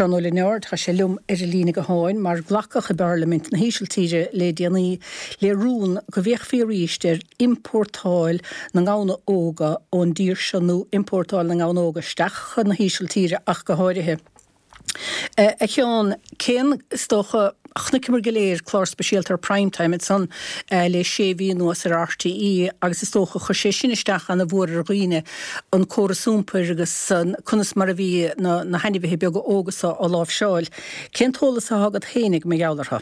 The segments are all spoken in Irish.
Seán Ó Lionáird, tá sé liom ar an líne gutháin, mar glacadh i bParlaimint na hÍsiltíre le déanaí le rún go bhféachfaí arís ar iompórtáil na ngamhna óga ón dtír seo nó iompórtáil na ngamhna óga isteach chun na hÍsiltíre ach go háirithe. A Sheáin, cén, is dócha, chonaiceamar go léir clár speisialta ar Prime Time ansan le sé mhí anuas ar RTÉ agus is dócha chuir sé sin isteach ana mhór ar dhaoine, an córas iompair agus conas mar a bhí na na hainmhithe beaga óga so á láimhseáil. Cén t-eolas atá agat féinig mar gheall orthu?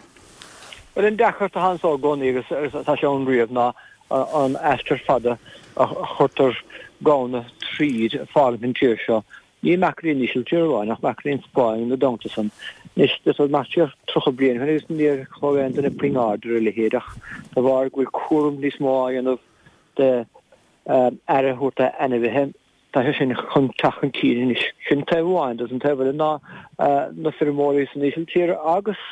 Bhuel, an deacracht atá anso i gcónaí agus atá sé ann riamh ná an aistear fada a chuirtear gamhna tríd ag fágaint an tír seo Ní amach go dtí an Ísiltír amháin ach amach go dtí an Spáinn ina dteannta san. Anois, d'fhéadfá imeacht siar 30 bliain ó shin agus níor thug aon duine puinn aird ar a leithéid ach de bharr go bhfuil cúram níos mó á dhéanamh de aire a thabhairt d'ainmhithe, tá sé sin chun teacht chun cinn anois. Sin taobh amháin de. An taobh eile ná na feirmeoirí san Ísiltír agus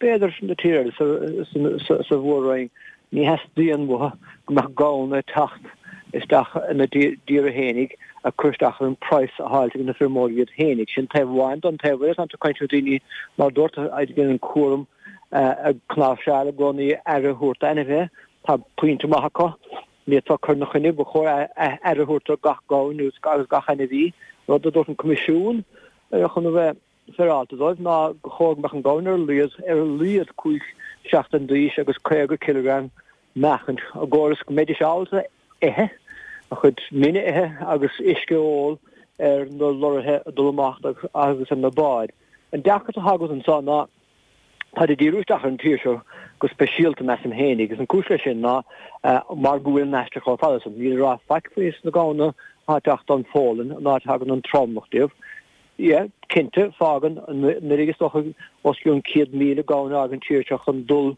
b'fhéidir na tíortha eile sa mhór-roinn, Ní theastaíonn uathu go mbeadh gamhna ag teacht isteach ina dtíortha fhéinig ag cur isteach ar an praghas a fháilt ag na feirmeoirí iad fhéinig. Sin taobh amháin don taobh eile tá tú ag caint le daoine mar dúirt a dhéanann cúram ag cnáimhseáil i gcónaí aire a thabhairt d'ainmhithe. Tá pointe maith acu. Ní fhéadfá cur ina choinne, ba chóir aire a thabhairt do gach gamhain agus gach ainmhí, rud a dúirt an Coimisiún chun a bheith féaráilte dóibh ná gur chóir go mbeadh an gamhain ar a laghad ar a laghad 5 seachtain d'aois agus 50 cileagram meáchaint i gcomhair is go mbeidís ábalta ithe, a chuid mine a ithe agus uisce a ól ar na lorraithe ag dul amach agus ar na báid. An deacracht atá agat anseo ná táid ag díriú isteach ar an tír seo go speisialta measaim féin agus an cúis leis sin ná mar go bhfuil an aistear chomh fada san. Níl a rá faic faoi sna gamhna atá ag teacht ón Pholainn, an áit a thagann an tromlach díobh. Yeah, cinnte, fágann anuraidh is dócha os cionn 100,000 gamhain a fhág an tír seo chun dul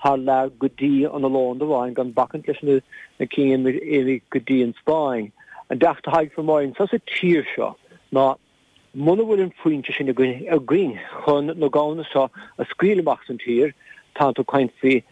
thar lear go dtí an Ollónd amháin, gan bacaint leis na cinn a imigh go dtí an Spáinn. An deacracht atá ag feirmeoirí anseo sa tír seo ná muna bhfuil an foinse sin againn chun na gamhna seo a scaoileadh amach as an tír, tá tú ag caint faoi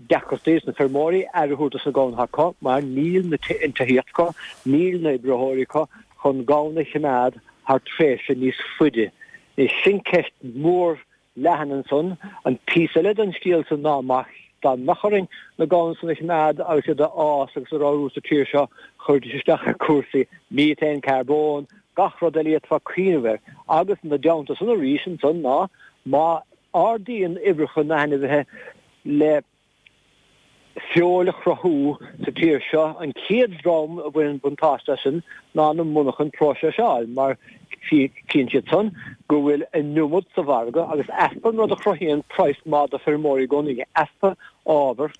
deacrachtaí dos na feirmeoirí aire a thabhairt dos na gamhna atá acu mar níl an tithíocht acu, níl na oibritheoirí acu chun gamhna a choimeád thar tréimhse níos faide. Anois sin ceist mhór leathan ansan. An píosa eile den scéal san ná má dá mbeadh orainn na gamhna san a choimeád agus iad a fhás agus a ramhrú sa tír seo chuirfidís isteach ar cúrsaí methane, carbón, gach rud eile a d'fhéadfá cuimhneamh air. Agus ina dteannta san arís ansan ná má ardaíonn uimhreacha na n-ainmhithe le feoil a chruthú sa tír seo. An chéad dream a bhaineann buntáiste as sin ná na monarchain próiseáil mar chíonn siad san go bhfuil an iomad sa mhargadh agus easpa an rud a chruthaíonn praghas maith do feirmeoirí i gcónaí, easpa ábhar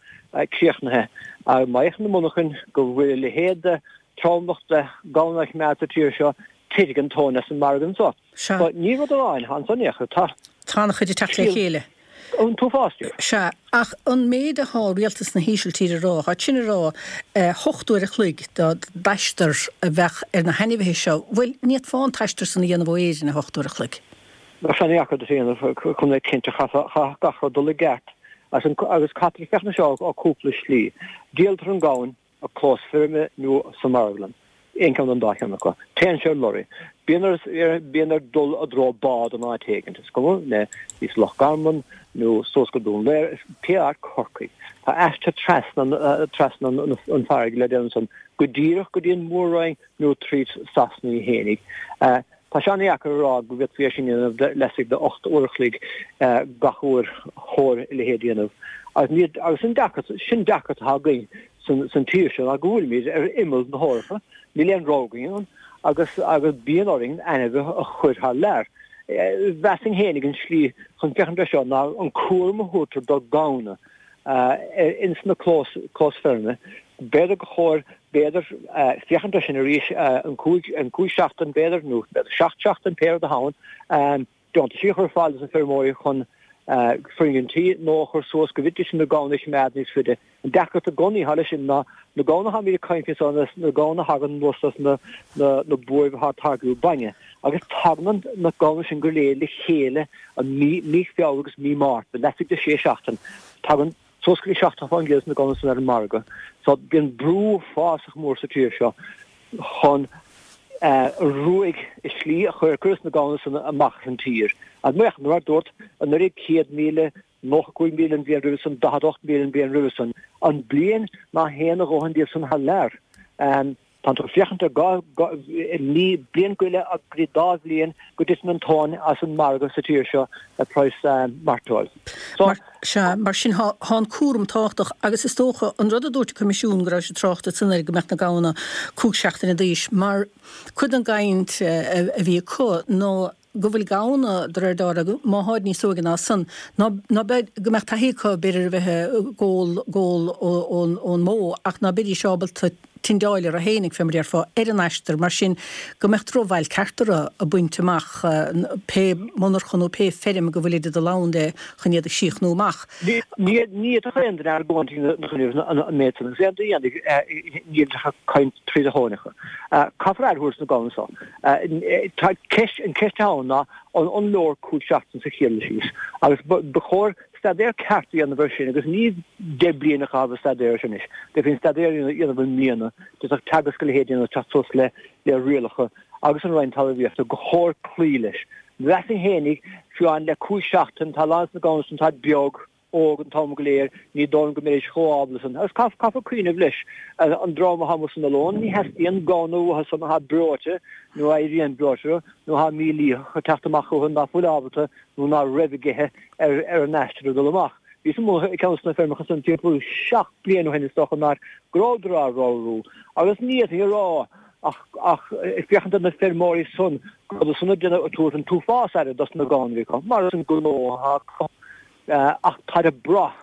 críochnaithe. Má fhéachann na monarchain go bhfuil a leithéid de tromlach de gamhna á choimeád sa tír seo, titfidh an tóin as an margadh anso. Sea. So, ní rud amháin ansan é, tá. Tá an-chuid ag teacht le chéile. An t-uafás díobh. Sea, ach an méid atá rialtas na hÍsiltíre a rá, tá sin ag rá 8 uair a chloig d'aistear a bheadh ar na hainmhithe seo, bhuel, ní fhéadfá an t-aistear san a dhéanamh ó Éirinn i 8 uair a chloig. Bheadh sé an-dheacair duit a dhéanamh, chun a bheith cinnte, chaithfeadh gach rud dul i gceart. Agus caithfear féachaint air seo ó cúpla slí. Díoltar an gamhain. i gclós feirme nó sa mharglann, aon cheann den dá cheann acu. Téann sé ar lorry. Bíonn air, bíonn air dul i dtreo bád in áit éigint, is cuma le thíos Loch Garman nó suas go Dún Laoghaire, is pé áit, Corcaigh. Tá aistear trasna, trasna an farraige le déanamh ansan, go díreach go dtí an Mhór-Roinn nó tríd Sasana í fhéinig. Tá sé an-dheacair a rá go bhféadfaí é sin a dhéanamh laistigh de 8 uair a chloig gach uair chóir a leithéid a dhéanamh. Agus ní, agus an deacracht, sin deacracht atá againn san, san tír seo ná go bhfuilimid ar imeall na hEorpa, níl aon rogha againn ann agus, agus bíonn orainn ainmhithe a chur thar lear. Mheasfainn fhéinig an slí chun féachaint air seo ná an cúram a thabhartar do gamhna ins na clós, clós feirme. B'fhéidir gur chóir, b'fhéidir, féachaint air sin arís, an 5, an 5 seachtain b'fhéidir, nó b'fhéidir 7 seachtain, pé rud atá ann, deontaisí a chur ar fáil dos na feirmeoirí chun foirgintí nua a chur suas go bhféadfaidís na gamhna a choimeád níos faide. An deacracht i gcónaí atá leis sin ná na gamhna atáimid ag caint faoi seo, na gamhna a thagann anuas as na, na, na buaibh atá ag táirgiú bainne. Agus tagann na gamhna sin go léir le chéile an mí, mí Feabhra agus mí Márta, laistigh de 6 seachtain. Tagann suas go dtí 70% de na gamhna san ar an margadh. So bíonn brú uafásach mór sa tír seo chun. Ruaig is slí a chuir cuireadh na gamhna san amach as an tír. Agus mar a dúrt, anuraidh 100,000, 95,000 an bhliain roimhe san, 48,000 an bhliain roimhe san. An bliain ná théann a dhóthain díobh san thar lear. Tánn tú ag féachaint ar mí, bliain go leith go dtí dá bhliain go dtiteann an tóin as an margadh sa tír seo ar praghas mairteoil. So. Sea, mar sin thá an cúram tábhachtach agus is dócha an rud a dúirt an Coimisiún go raibh siad trácht ansan air go mbeadh na gamhna 5 seachtaine d'aois mar cuid den gcaint a bhí acu ná go bhfuil gamhna, de réir dealraimh, má tháid níos óige ná san, ná, ná beidh, go mbeadh taithí acu, b'fhéidir, a bheith ag ól, ól ón, ón mbó, ach ná beidís ábalta tindeáil orthu fhéinig, fé mar déarfá, ar an aistear, mar sin, go mbeadh drochbhail ceart orthu a baint amach, pé monarcha nó pé feirm go bhfuilid ag dul ann le, chun iad a chríochnú amach. Ní fhéadfadh aon duine argóint ina choinne an méid san, agus aon duine a dhéanfaidh, níl ach ag caint tríd a thóineacha. Caithfear aire a thabhairt do na gamhna so. Tá ceist, an ceist atá ann ná an leor 5 seachtain sa chéad dul síos agus ba chóir staidéar ceart a dhéanamh air sin agus ní 10 bliain a chaitheamh ag staidéar air sin anois. D'fhéadfaí an staidéar a dhéanamh i mbliana, d'fhéadfadh Teagasc a leithéid a dhéanamh teacht suas le le rialacha agus an Roinn Talmhaíochta gur chóir cloí leis. Mheasfainn fhéinig, fiú amháin le 5 seachtain, tá a lán de na gamhna san táid beag, óg an t-am go léir, ní dóigh liom go mbeidís chomh ábalta san. Agus caithfear cuimhneamh leis, an dream atá amuigh san oileán, ní theastaíonn gamhna uathu san atá breoite nó a éiríonn breoite nó atá mílítheach ag teacht amach chucu ná fuil ábalta nó ná raibh ag ithe ar an aistear ag dul amach. Bhíos amuigh ag ceann de na feirmeacha san timpeall 7 bliana ó shin is dócha an áit go rabhadar á ramhrú agus ní fhéadfainn a rá ach ach ag féachaint ar na feirmeoirí san go rabhadar san ag déanamh ag tabhairt an t-uafás aire dos na gamhna a bhí acu mar is an gnó atá acu. Ach táid ag brath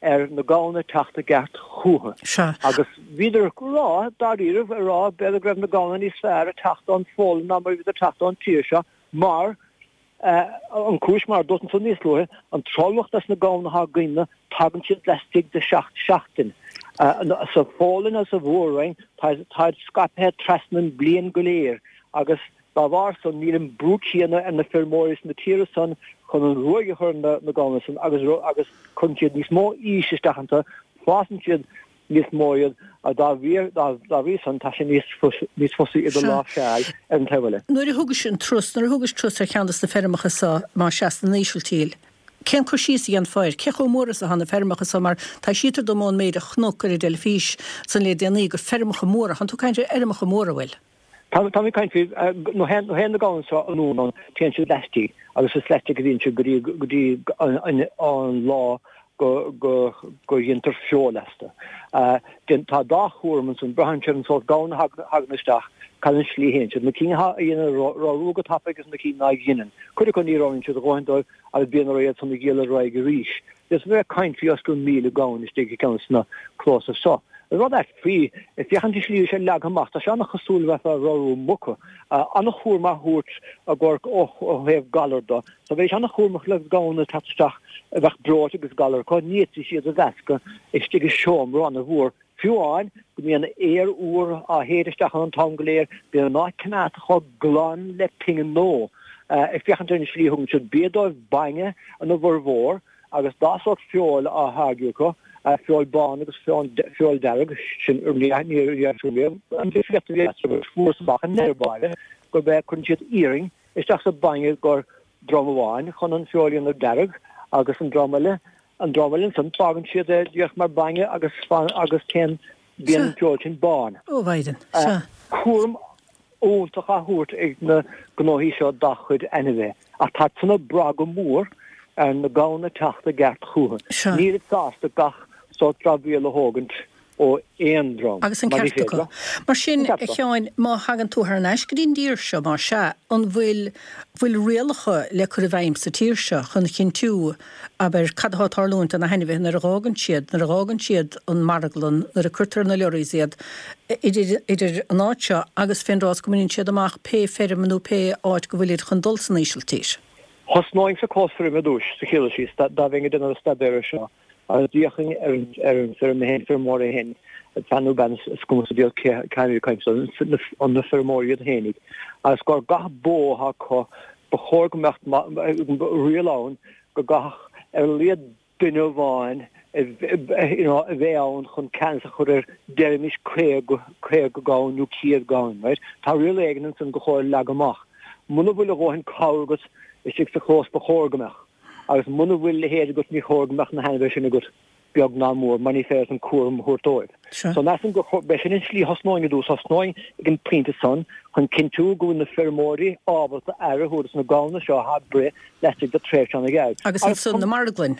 ar na gamhna teacht i gceart chúthu. Sea. Agus bhíodar ag rá, dáiríribh, ag rá b'fhéidir go raibh na gamhna níos fearr ag teacht ón Pholainn ná mar a bhíodar ag teacht ón tír seo mar, an cúis, mar a dúirt ansan níos luaithe, an tromlach des na gamhna atá againne, tagann siad laistigh de sheacht seachtain. Sa Pholainn agus sa Mhór-Roinn, táid scaipthe trasna an bliain go léir agus, Dá bharr san, níl an brú céanna ar na feirmeoirí sna tíortha san chun an ruaig a chur ar na gamhna san agus agus cuireann siad níos mó aois isteach iontu, fásann siad níos mó iad agus dá bhrí dá bhrí san tá sé níos níos fusa iad a láimhseáil ar an taobh eile. Nuair a thugais an turas, nuair a thugais turas ar cheann de na feirmeacha so, más ea, san Ísiltír, cén cur síos a dhéanfá air? Cé chomh mór is atá na feirmeacha so? Mar taibhsítear dom ón méid a chonac ar an dteilifís san le déanaí gur feirmeacha móra, thánn tú ag caint ar fheirmeacha móra, bhfuil? Tá mé ag caint faoi, nuair a théann na gamhna seo anonn ann, téann siad laistigh agus is laistigh a bhíonn siad go dtí, go dtí an lá go, go, go dhéantar feoil astu. Tá dá chúram ansan, braitheann sé ar an sórt gamhna a thagann isteach, cad an slí a théann siad, na cinn a dhéanann ramhrú go tapaidh agus na cinn ná dheineann. Cuid acu ní ramhraíonn siad a dhóthain dóibh agus bíonn orthu iad san a dhíol ar aghaidh arís. Is bheith ag caint faoi os cionn 1,000 gamhain istigh i gceann de na clósa seo. An rud ait faoi, ag féachaint an slí a bhí sé leagtha amach, tá sé an-chosúil le bheith ag ramhrú muca. An-chúram á thabhairt i gcomhair ó thaobh galar de. So bheidís an-chúramach le gamhna ag teacht isteach a bheadh breoite agus galar acu, ní fhéadfaidís iad a mheascadh istigh i seomra an-mhór. Fiú amháin go mbíonn aer úr á shéideadh isteach ann an t-am go léir, bíonn an áit coimeádta chomh glan le pingin nua. Ag féachaint ar an slí a thugann siad bia dóibh, bainne ina bhformhór, agus dá sórt feoil á tháirgeadh acu, feoil bán agus feoil dearg, sin ní riamh an difríocht a bhí eatarthu agus fuarthas amach i ndeireadh báire gurb é cuireann siad iarann isteach sa bhainne gur dream amháin chun an feoil a dhéanamh dearg agus an dream eile An dream eile ansan, fágann siad é díreach mar bainne agus agus téann, bíonn an feoil sin bán. Ó, Mhaighdean, sea. Cúram iontach á thabhairt ag na gnóthaí seo dá chuid ainmhithe, ach tá san ag brath go mór ar na gamhna teacht i gceart chucu. Nílid sásta gach sórt dramhaíl a thógaint ó aon dream, Agus an mar ní ceart féidir acu. leo. Mar sin, An a ceart acu. Sheáin, má thagann tú thar n-ais go dtí an dtír seo, más ea, an bhfuil, bhfuil rialacha le cur i bhfeidhm sa tír seo chun a chinntiú, abair, cad atá ag tarlúint do na hainmhithe nuair a dh'fhágann siad, nuair a dh'fhágann siad an marglann, nuair a cuirtear ar na lorries iad, idir, idir an áit seo agus fén dtráth is go mbaineann siad amach pé feirm nó pé áit go bhfuilid chun dul san Ísiltír? Thosnóinn sa clós feirme ar dtúis, sa chéad dul síos, dá dá mbeinn ag déanamh an staidéir air seo. Agus d'fhéachfainn ar an ar an feirm féin, feirmeoir é féin, fear nó bean, is cuma sa diabhal cé cé ag caint an na feirmeoirí iad féinig, agus gur gach bó atá acu, ba chóir go mbeadh riail ann go gcaithfeadh ar a laghad duine amháin A bheith ann chun ceannas a chur ar, deirimis, 50, 50 gamhain nó 100 gamhain, right? Tá riail éigin ansan gur chóir a leagadh amach. Muna bhfuil a dhóthain cabhair agat istigh sa chlós ba chóir go mbeadh. Agus muna bhfuil a leithéid agat ní chóir go mbeadh na hainmhithe sin agat, beag ná mór, mar ní féidir leat an cúram a thabhairt dóibh. So measaim gur chóir, b'é sin an slí a thosnóinn i dtús, thosnóinn ag an bpointe san chun cinntiú go bhfuil na feirmeoirí ábalta aire a thabhairt dos na gamhna seo atá ag breith laistigh de tréimhse an-ghearr. Agus ansan na marglainn.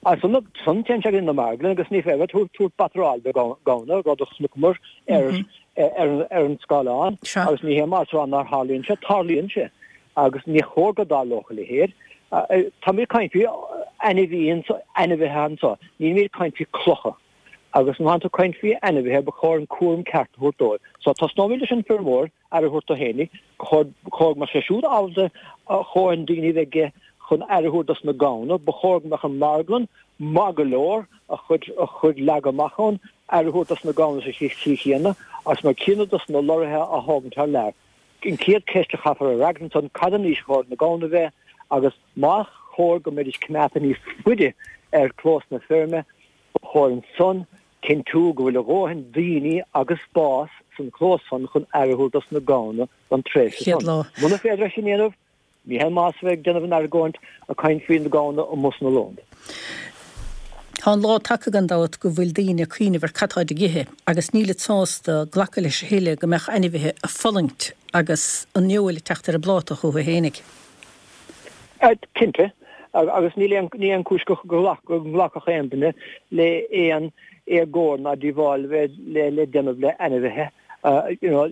Ansan téann sé go dtí na marglainn agus ní féidir tabhairt batráil do ghamhna, rud a chonaiceamar ar an scáileán agus ní hé mar rá nár tharlaíonn sé, tarlaíonn sé agus ní chóir go dtarlódh a leithéid. Táimid ag caint faoi ainmhithe anso, nílimid ag caint faoi clocha agus má tá tú ag caint faoi ainmhithe ba chóir an cúram ceart a thabhairt dóibh. So tosnóimid leis an feirmeoir aire a thabhairt dó fhéinig, ba chóir go mbeadh sé siúd ábalta a dhóthain daoine a bheith aige chun aire a thabhairt dos na gamhna, ba chóir go mbeadh an mharglann maith go leor a chuid a chuid leagadh amach ann, aire a thabhairt dos na gamhna sa tslí chéanna agus mar céanna dos na lorraithe á thógaint thar lear. An chéad cheist a chaithfear a fhreagairt ansan, cad an aois a chóir na gamhna a bheith agus más chóir go mbeidís coimeádta níos faide ar chlós na feirme, ba chóir ansan Cinntiú go bhfuil a dhóthain daoine agus spás san chlós san chun aire a thabhairt dos na gamhna don tréimhse san. Muna féidir é sin a dhéanamh, ní haon maitheas a bheith ag déanamh an argóint ag caint faoi na gamhna amuigh san Ollónd. Tá an lá tagtha gan dabht go bhfuil daoine ag cuimhneamh ar cad táid ag ithe agus nílid sásta glacadh leis a thuilleadh go mbeadh ainmhithe ag fulaingt agus an fheoil ag teacht ar an bpláta chucu fhéinig. Cinnte, agus níl aon ní aon chúis go nglacfadh aon duine le aon éagóir ná díobháil a bheith le déanamh le ainmhithe. You know,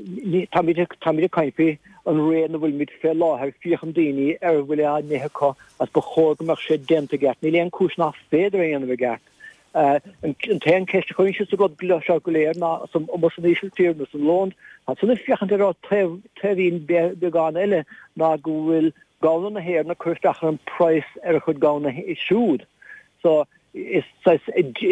táimid táimid ag caint faoi an ré ina bhfuilimid fé láthair, féachann daoine ar a bhfuil á n-ithe acu agus ba chóir go mbeadh sé déanta i gceart. Níl aon chúis nach féidir é a dhéanamh i gceart. An t-aon cheist a chuireann siad sa rud seo go léir ná amuigh san Ísiltír nó san Ollónd, tá san ag féachaint ar taobh taobhín beagán eile ná go bhfuil gamhna na hÉireann ag cur isteach ar an praghas ar a chuid gamhna siúd. So is saghas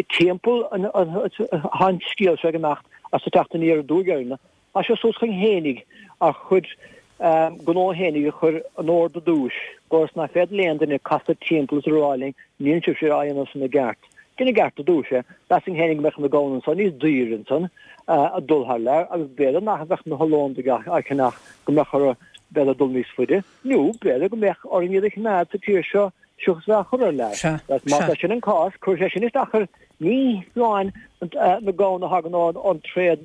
timpeall atá an scéal seo ag imeacht as ag teacht aniar aduaidh orainne. Tá sé suas chugainn fhéinig ár chuid gnó fhéinig a chur in ord i dtús, ionas nach féidir le aon duine casadh timpeall is a rá linn níl sibhse á dhéanamh san i gceart. Déan i gceart i dtús é. Mheasfainn fhéinig go mbeadh na gamhna anso níos daoire ansan ag dul thar lear agus b'fhéidir nach mbeadh na hOllóndaigh á cheannach go mbeadh orthu b'fhéidir dul níos faide nó b'fhéidir go mbeadh orainn iad a choimeád sa tír seo seachas bheith á chur thar lear. Sea, Má tá sin an cás, cuirfidh sé sin isteach ar ní hamháin na gamhna a thagann ón tréad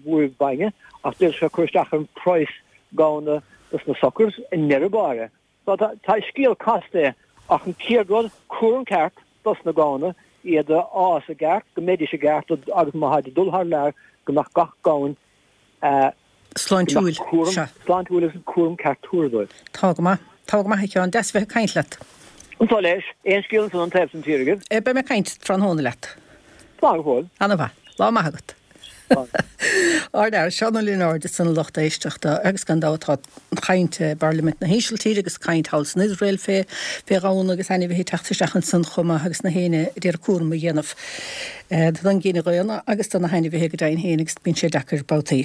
buaibh bainne, ach d'fhéadfadh sé cur isteach ar an praghas gamhna dos na suckers i ndeireadh báire. So tá scéal casta é, ach an chéad rud, cúram ceart dos na gamhna, iad a fhás i gceart, go mbeidís i gceart agus má tháid ag dul thar lear, go mbeadh gach gamhain Sláintiúil, sea. Sláintiúil agus an cúram ceart tabhartha dóibh. Tá go maith. Tá go maith, a Sheáin. Deas a bheith ag caint leat. Anso leis. Aon scéal ansan ón taobh san tír agaibh? Beidh mé ag caint tráthnóna leat. Slán go fóill. Ana mhaith. Lá maith agat. Ár bhfear, Seán Ó Lionáird ansan a lucht éisteachta agus gan dabht tá caint i bParlaimint na hÍsiltíre agus caint thall san Iosrael fé fé ghamhna agus ainmhithe ag teacht isteach ansan chomh maith agus na héinne a d'iarraidh cúram a dhéanamh don gcine dhaonna agus do na hainmhithe go deimhin féin agus bíonn sé deacair babhtaí.